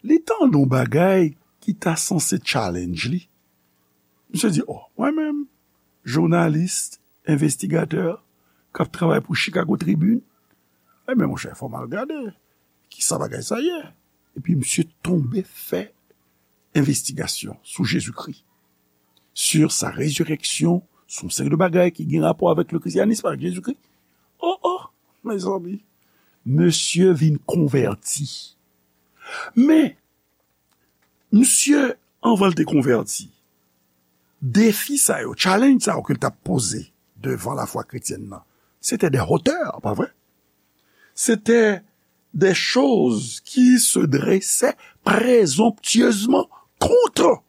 li tande yon bagay ki ta sanse challenge li. Misye di, "Oh, mwen menm, jounalis, envestigatè, k ap travay pou Chicago Tribune. Ebyen, monchè, fò m al gade ki sa bagay sa ye. Epi misye tonbe fè envestigasyon sou Jezikri, sur sa résurrection, sou yon seri de bagay ki gen rapò avèk le christianisme, avèk Jezikri. Oh, oh, mezanmi, misye vin konvèti. Men, misye, anvan l te konvèti, defi sa yo, challenge sa yo ke l t ap poze devan lafwa kretyèn nan, se te de hotè, pa vre? Se te de choz ki se drese prezomptyezman contre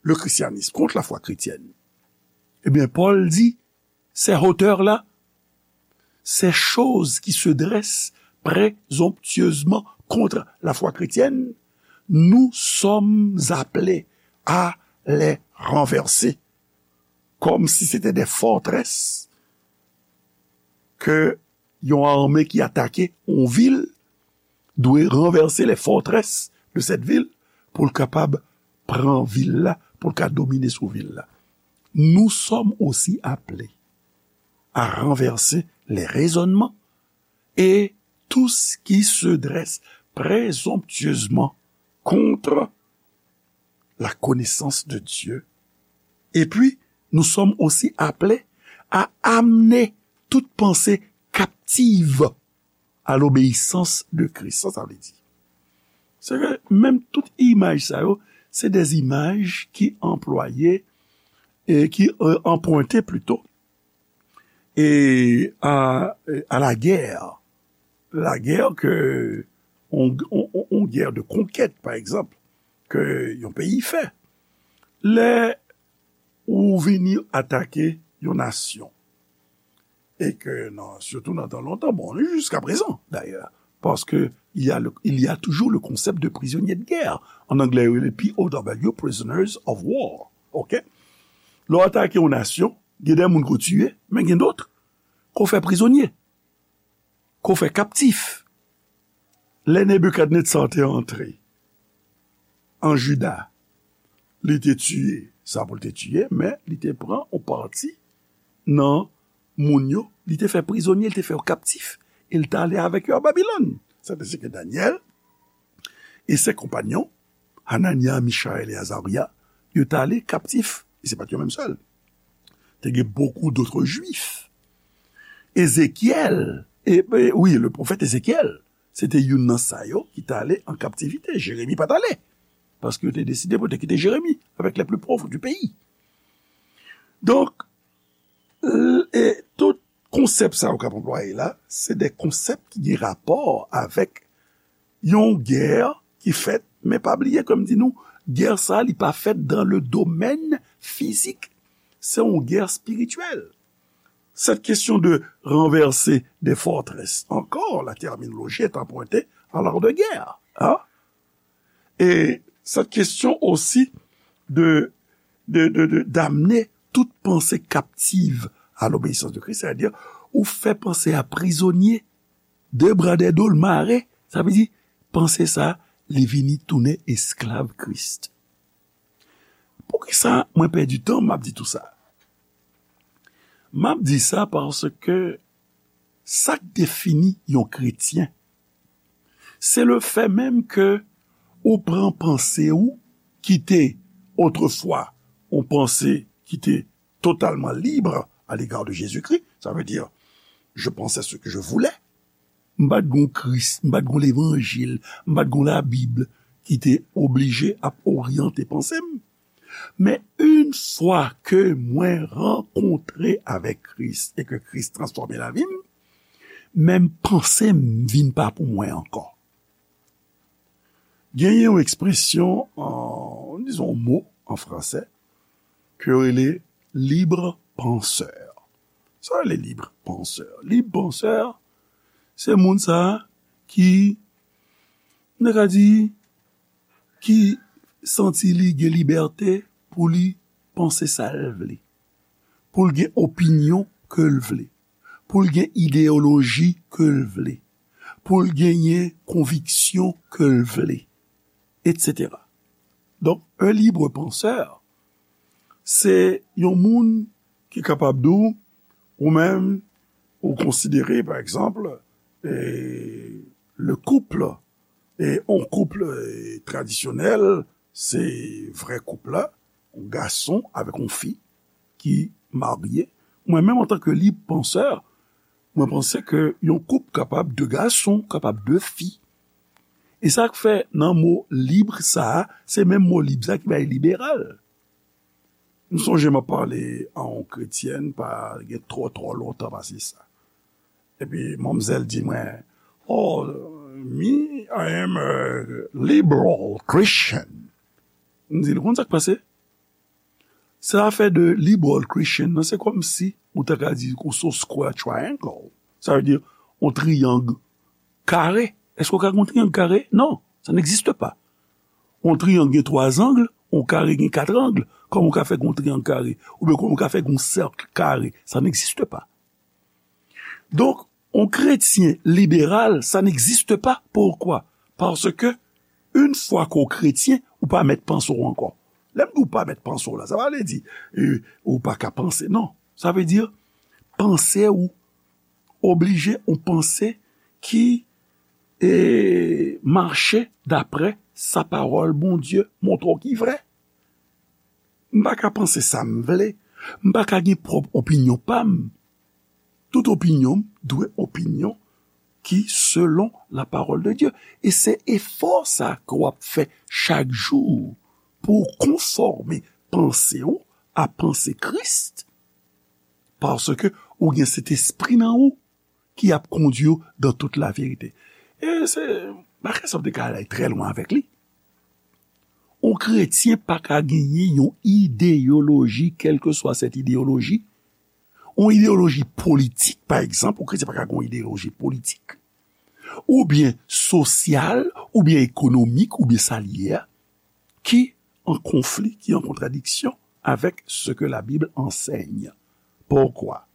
le christianisme, contre la foi chrétienne. Ebyen, Pòl di, ces hauteurs-là, ces choses qui se dressent présomptueusement contre la foi chrétienne, nous sommes appelés à les renverser, comme si c'était des forteresses ke yon ame ki atake yon vil dwe ranvèse les forteresses de cette ville pou l kapab pran vil la, pou l ka domine sou vil la. Nous sommes aussi appelés à renverser les raisonnements et tout ce qui se dresse présomptueusement contre la connaissance de Dieu. Et puis, nous sommes aussi appelés à amener toute pensée captive à l'obéissance de Christ. Sa, sa vle di, se ke menm tout imaj sa yo, se de imaj ki anplwaye, e ki, euh, anprente plito, e a, a la guerre. La guerre ke, on, on, on, on guerre de conquête, pa egzanp, ke yon peyi fè. Lè ou vini atake yon nasyon, e ke nan, surtout nan tan lontan, bon, jusqu'à présent d'ailleurs, parce que il y a le, il y a toujours le concept de prisonnier de guerre. En anglais, il est P O W, prisoners of war. OK? Lè w atake yon nasyon, gen de moun ko tiye, men gen dòt ko fè prizonye, ko fè kaptif. Lè Nebikadnetza te antre an Jida, li te tiye sa pou l te tiye, men li te pran yon pati nan moun yo, li te fè prizonye, li te fè yo kaptif, e l t ale avèk yo a Babilòn. Sa te se ke Danyèl e se konpanyon, Hananya, Michayèl e Azarya, yo t ale kaptif. E se pa t yo menm sèl. Te gen beaucoup d'autres Juifs. Ezekyèl, e, e, wi, le pwofèt Ezekyèl, se te youn nan sa yo ki t ale an kaptivite. Jeremi pa t ale. Paske yo te deside pou yo te kite Jeremi avec les plus pauvres du pays. Donk, l-, e tout konsèp sa yo k ap anplwaye la, se de konsèp ki gen rapò avèk yon gè ki fèt, men pa bliye, kòm di nou, gè sa, li pa fèt dans le domaine physique. Se yon gè espirityèl. Cette question de renverser des forteresses, encore, la terminologie est empruntée à l'art de guerre, hein? Et cette question aussi de, de, de, de, d'amener toute pensée captive à l'obéissance de Christ, c'est-à-dire, ou fè panse a prizonye, de bra de do l mare, sa vle di, panse sa, li vini tounen esklav Kris. Poukisa mwen pèdi tan, m ap di tou sa? M ap di sa paske sa k defini yon kretyen, se le fè menm ke ou pran panse ou ki te otrefwa yon panse ki te totalman libre à l'égard de Jésus-Christ, ça veut dire, je pensais ce que je voulais. M pa t gon Kris, m pa t gon levanjil, m pa t gon Labib ki te oblije ap oryante panse m. Men, yon fwa ke mwen rankontre avèk Kris e ke Kris transfòme lavi m, menm panse m vin pa pou mwen ankò. Genyen yon ekspresyon, an, dizon, yon mo an fransè, ke yo rele libre penseur. Sa yo rele libre penseur? Libre penseur, se moun sa a ki, nou ka di, ki santi li gen libète pou li panse sa l vle, pou l gen opinyon ke l vle, pou l gen ideyoloji ke l vle, pou l genyen konviksyon ke l vle, etsetera. Donk, un libre penseur, se yon moun ki kapab di w, Ou menm, ou konsidere, pa egzanp, e, le couple, e, on koup, e, tradisyonèl, se vrè koup la, on gason avèk on fi ki marye. Mwen menm, antanke lib pansè, mwen panse ke yon koup kapab de gason, kapab de fi. E sa k fè nan mo lib sa a, se menm mo lib sa ki bay liberal. M sonje m ap pale a yon kretyèn pa gen twò twò lontan pase sa. Epi manmzèl di mwen, "Oh, me, I am a liberal Christian." M di l, "Ou konn sa k pase? Se afè de liberal Christian nan, se kòmsi ou ta ka di ou se yon square triangle." Sa vle di yon triyang kare. Èske w ka gen yon triyang kare? Non, ça n'existe pas. Yon triyang gen twa zang, yon kare gen kat ang. Kòman w ka fè gen yon triyang kare? Oubyen kòman w ka fè gen yon sèk kare? Ça n'existe pas. Donk, yon kretyen liberal, ça n'existe pas. Poukwa? Paske, yon fwa ke w kretyen, ou pa mèt panse w ankò. Lè m di w pa mèt panse w la, sa pa vle di, e, ou pa ka panse. Non, sa vle di, panse ou oblije yon panse ki, e, mache daprè sa pawòl Bondye montre w ki vrè. M pa ka panse sa m vle. M pa ka gen pwòp opinyon pa m. Tout opinyon m dwe opinyon ki selon la parole de Dieu. E se efò sa ke w ap fè chak jou pou w konfòme panse w a panse Kris. Paske ou gen Sentespri nan ou ki ap kondui w dans toute la vérité. E se bagay sa w te ka ale trè lwen avèk li. Yon kretyen pa ka genyen yon ideyoloji, kèlkeswa sèt ideyoloji. Yon ideyoloji politik, pa egzanp, yon kretyen pa ka gen yon ideyoloji politik. Oubyen sosyal, oubyen ekonomik, oubyen sa l ye a, ki an konfli, ki an kontradiksyon avec ce que la Bible enseigne. Pourquoi?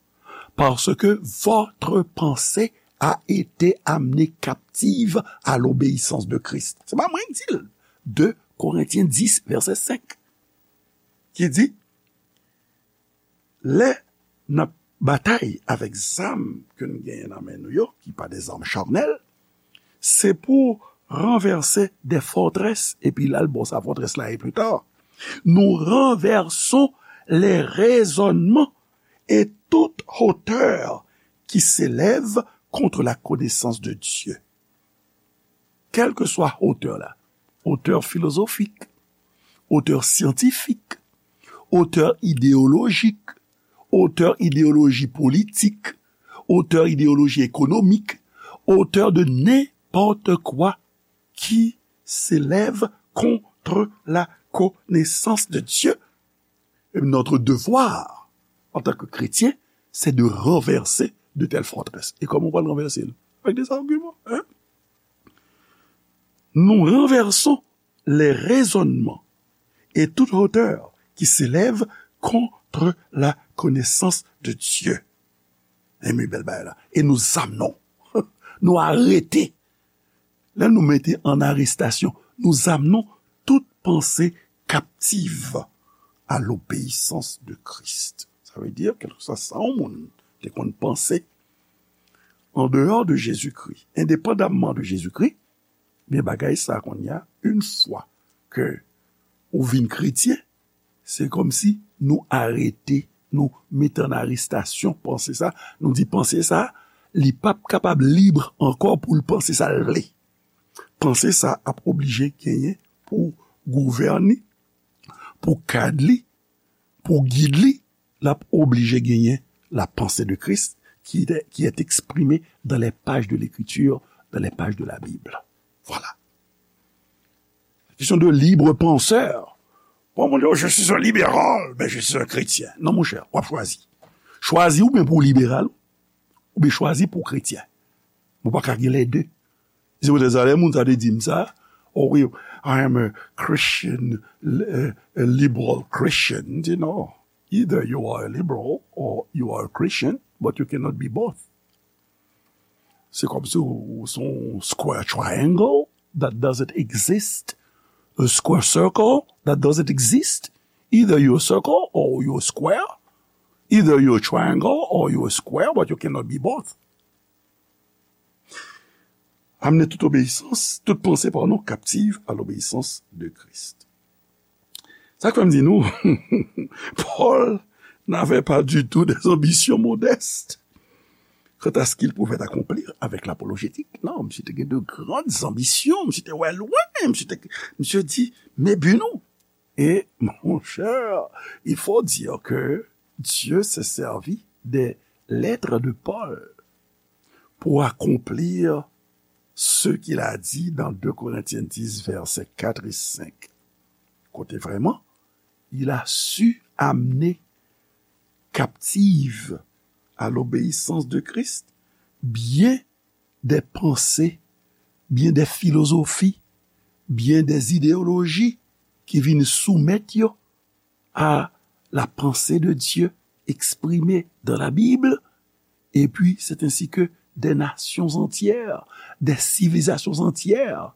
Parce que votre pensée a été amenée captive à l'obéissance de Christ. Se pa mwen ki di l. De Korentyen dis, vèsè senk, ki di, lè n ap batay avèk zam ke n genyen nan men nou yo, ki pa de zam chanèl, se pou ranvèse de fòtrès, epi l al bò sa fòtrès la ye pli ta. Nous renversons les raisonnements et toute hauteur qui s'élève contre la connaissance de Dieu. Kèlkeswa otè la, otè filozofik, otè syantifik, otè ideyolojik, otè ideyoloji politik, otè ideyoloji ekonomik, otè de nenpòt kwa ki s'élève contre la connaissance de Dieu. Et notre devoir, en tant que chrétien, c'est de renverser de telles forteresses. Et comment on va le renverser? Avec des arguments, hein? Nous renversons les raisonnements et toute hauteur qui s'élève contre la connaissance de Dieu. Enben, bèl bagay la. Et nous amenons, nous arrêter. Lè nou mete an arestasyon, nous amenons toute pensée captive à l'obéissance de Christ. Sa vle di, kèlkeswa sa yon moun te konn panse, en dehors de Jésus-Christ, indépendamment de Jésus-Christ, men bagay sa kounye a, yon fwa ke ou vin kretyen, se kòmsi nou arete, nou mete an arestasyon panse sa, nou di panse sa, li p ap kapab lib ankò pou l panse sa l vle. Panse sa ap oblije genyen pou gouvène, pou kad li, pou gid li, l ap oblije genyen la pensée de Christ qui est, qui est exprimée dans les pages de l'Écriture, dans les pages de la Bible. Voilà. Question de libre penseur. Bon, moun di, "Oh, je suis un libéral, mais je suis un chrétien." Non, monchè, w ap chwazi. Chwazi oubyen pou w liberal, oubyen chwazi pou w kretyen. Ou pa ka gen lè de. Se poutèt sa, lè moun sa te di m sa, "Oh wi, I am a Christian, a liberal Christian." M di, "No, either you are a liberal or you are a Christian, but you cannot be both." Se kòmsi ou, ou se yon square triangle that doesn't exist, a square circle that doesn't exist. Either you're a circle or you're a square. Either you're a triangle or you're a square, but you cannot be both. Amenez toute obéissance, toute pensée, pardon, captive à l'obéissance de Christ. Sa k fè m di nou, Paul n'avait pas du tout des ambitions modestes quant à ce qu'il pouvait accomplir avec l'apologétique. Non, misye te gen de grandes ambitions, misye te wè lwen, misye te, misye di, men bi nou. Et, mon cher, il faut dire que Dieu s'est servi des lettres de Paul pour accomplir ce qu'il a dit dans deux Corinthiens dix, versets quatre et cinq. Kote vrèman, il a su amener captive à l'obéissance de Christ bien des pensées, bien des philosophies, bien des idéologies ki vin soumèt yo à la pensée de Dieu exprimée dans la Bible, et puis c'est ainsi que des nations entières, des civilisations entières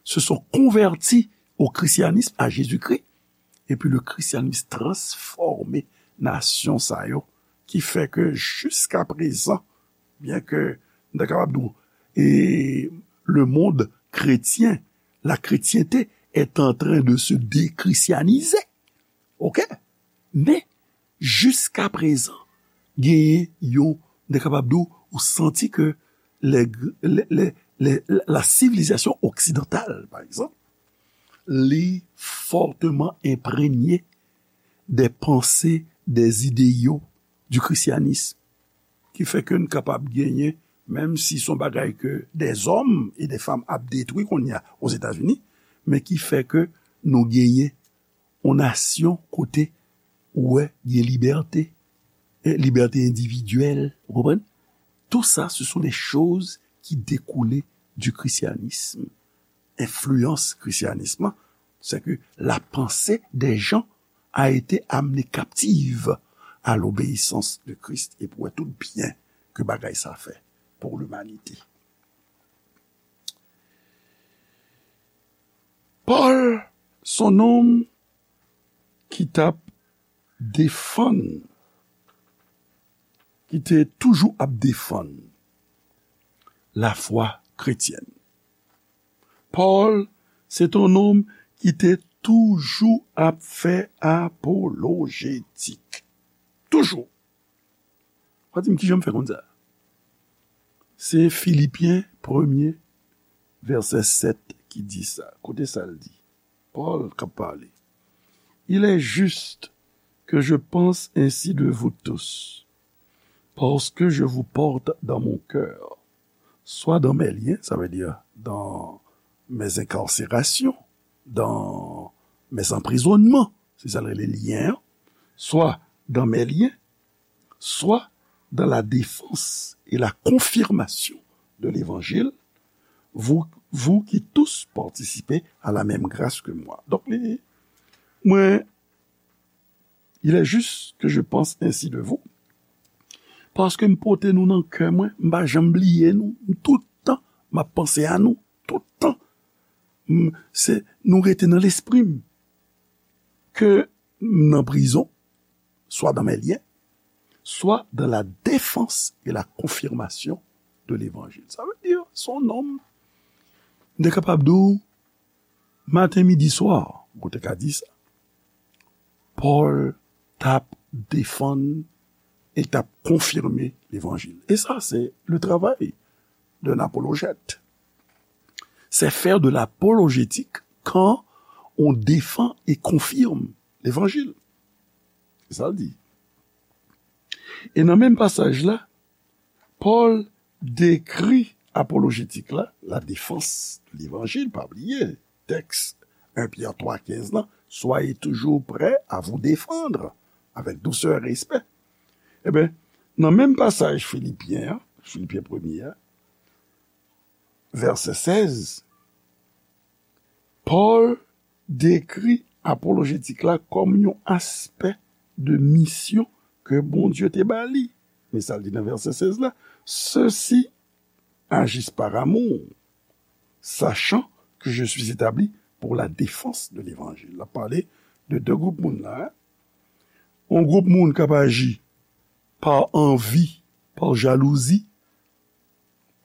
se sont converties au christianisme, à Jésus-Christ, et puis le christianisme transformé nasyon sa yo, ki fè ke jiska prezan, byen ke n ta kapab di w, e le monde chrétien, la chrétienté est en train de se déchristianiser. OK? Men, jiska prezan, genyen yon, n ta kapab di w, ou santi ke les, les, les, les, la civilisation occidentale, par exemple, li fortement imprégné des pensées, des idéaux du christianisme, ki fè ke n kapab genyen, menm si se yon bagay ke des hommes et des femmes ap detwi kounye a Ozetazini, men ki fè ke nou genyen yon nasyon kote ou wè gen libète, e libète endividyèl, ou konprann? Tout ça, ce sont des choses qui découlaient du christianisme. Enfliyans krisyanism lan, c'est que la pensée des gens a été amenée captive à l'obéissance de Christ. E pou wè tout byen ke bagay sa fè pour l'humanité. Paul, se yon nonm ki t ap defann, ki te toujou ap defann lafwa kretyèn. Paul, se t yon nonm ki te toujou ap fè apolojetik. Toujou. W a di m kijan m fè konn sa? Se Filipyen premye, vèsè sèt ki di sa. Koute sa l di. Paul k ap pale. Il est juste que je pense ainsi de vous tous, parce que je vous porte dans mon cœur, soit dans mes liens, ça veut dire dans mes incarcérations, dans mes emprisonnements, se sa l rele lyen an, soit dans mes liens, soit dans la défense et la confirmation de l'évangile, vous, vous qui tous participez à la même grâce que moi. Donk, li, mwen, il est juste que je pense ainsi de vous, paske m pote nou nan kè mwen, m pa janm bliye nou, m tout tan, m ap panse a nou, tout tan. M, se, nou rete nan lespri m. Ke m nan prizon, soit dans mes liens, soit dans la défense et la confirmation de l'évangile. Ça veut dire, se yon nonm, m te kapab di w, maten, midi, swa, ou te ka di sa, Paul t ap defann e t ap konfime levanjil. E sa, se le travay d'un apologète. C'est faire de l'apologétique quand on défend et confirme l'évangile. Se sa l di. E nan menm pasaj la, Paul dekri apolojetik la, la défense de l'évangile, pa bliye, tèks en Pyè twa kenz lan, soyez toujours prêts à vous défendre avec douceur et respect. Ebyen, nan menm pasaj Filipyen an, Filipyen premye a, vèsè sèz, Paul dekri apolojetik la kòm yon aspè de misyon ke Bondye te ba li. Men sa l di nan vèsè sèz la, ceux-ci agissent par amour, sachant que je suis établi pour la défense de l'évangile. L ap pale de de gwoup moun la, hein. Yon gwoup moun k ap aji pa anvi, pa jalouzi,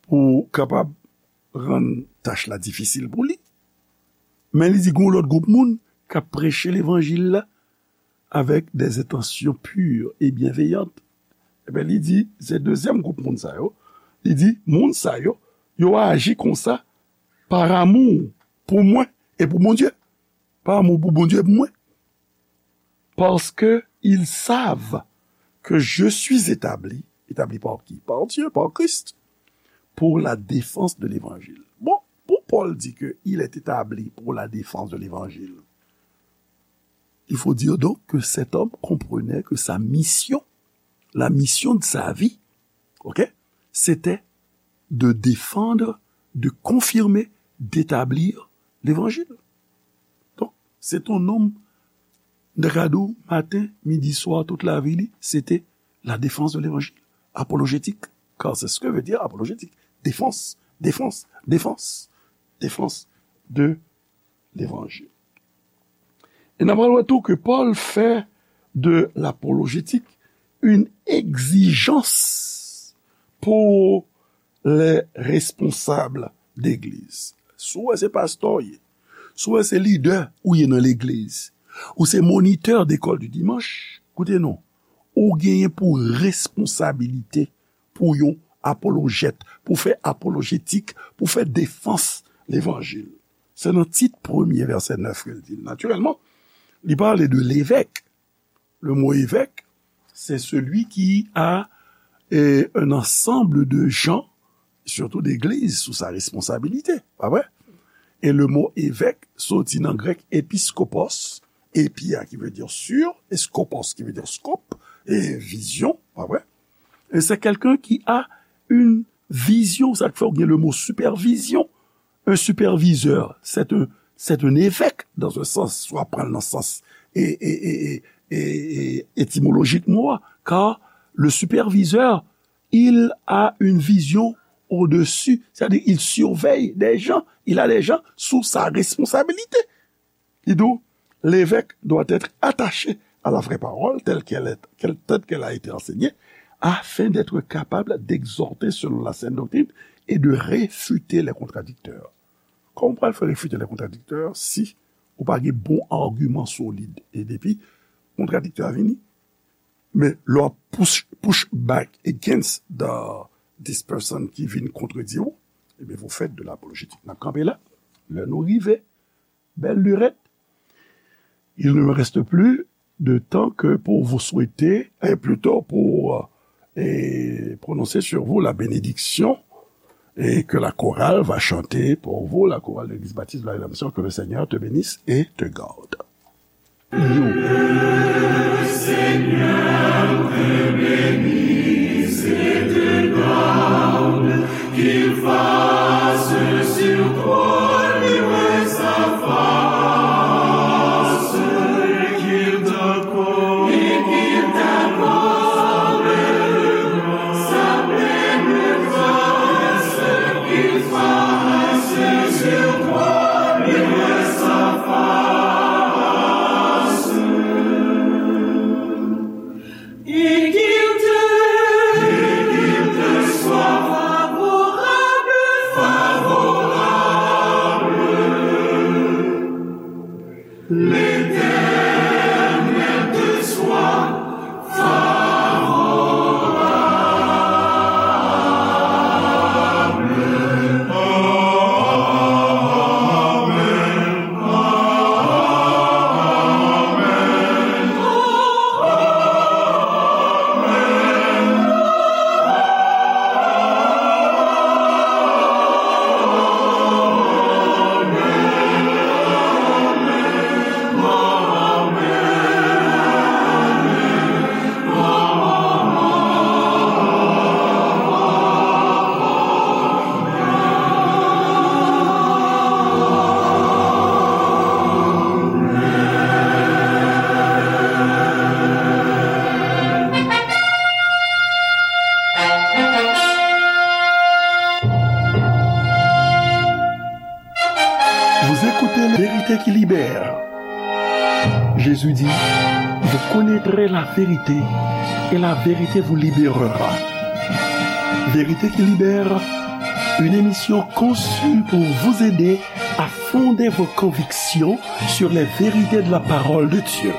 pou kapab rann tach la difisil pou li. Men li di gon lòt gwoup moun k ap preche levanjil la avec des intentions pures et bienveillantes. Ebyen, li di, se dezyèm gwoup moun sa yo. Li di, moun sa yo, yo aji konsa par amour pou mwen e pou Bondye. Par amour pou Bondye e pou mwen. Parce qu'ils savent que je suis établi, établi par qui? Par Dieu, par Christ, pour la défense de l'évangile. Bon, pou Pòl di ke il est établi pour la défense de l'évangile, il faut dire donc que cet homme comprenait que sa mission, la mission de sa vie, ok, c'était de défendre, de confirmer, d'établir l'évangile. Donk, se t on nonm, nèg la di w, maten, midi, swa, tout lavi li, se te la défense de l'évangile, apologétique, car c'est ce que veut dire apologétique, défense, défense, défense, défense de l'évangile. E n ap pral wè tou ke Pòl fè de l'apologétique une exigence pour les responsables d'église. Si w wè se pastè w ye, si w wè se lidè ou ye nan legliz, ou se monitè d'école du dimanche, koute non, ou genyen pou responsabilite pou yon apolojèt, pou fè apolojetik, pou fè defans levanjil. Se nan Tit premye, vèsè nèf ke l di l. Natirèlman, li pale de levèk. Le mot évêque, c'est celui qui a, eh, un ensemble de gens, surtout d'églises, sous sa responsabilité, pa vre? E le mot évêque soti nan grèk episkopos, epi a ki vle di sur, e skopos ki vle di skop, e vizyon, pa vre? E c'est quelqu'un qui a une vision, sa k fè w gen le mot supervision. Un superviseur, c'est un, c'est un évêque, dans un sens, si w ap pran l nan sans e, e, e, e, e, e, etimolojik mo a, car le superviseur, il a une vision au-dessus, c'est-à-dire il surveille des gens, il a des gens sous sa responsabilité. Li di w, l'évêque doit être attaché à la vraie parole telle qu'elle est, qu'elle, telle qu'elle a été enseignée, afin d'être capable d'exhorter selon la saine doctrine et de réfuter les contradicteurs. Kòman w pral fè refite les contradicteurs si ou pa gen bon agiman solid? E depi kontradiktè a vini, men lè w ap push, push back against the, this person ki vin kontredi w, ebyen, vous faites de l'apologétique. N ap kanpe la. Lè nou rive, bèl lirèt, il ne me reste plus de temps que pour vous souhaiter, et plutôt pour, euh, et prononcer sur vous la bénédiction et que la chorale va chanter pour vous, la chorale de l'Église baptiste de la rédemption, que le Seigneur te bénisse et te garde. Et qu'il te, et qu'il te soit favorable, favorable. L'Éternel te soit favorable. Amen. Vous écoutez la vérité qui libère. Jésus dit, vous connaîtrez la vérité et la vérité vous libérera. Vérité qui libère, une émission conçue pour vous aider à fonder vos convictions sur les vérités de la parole de Dieu.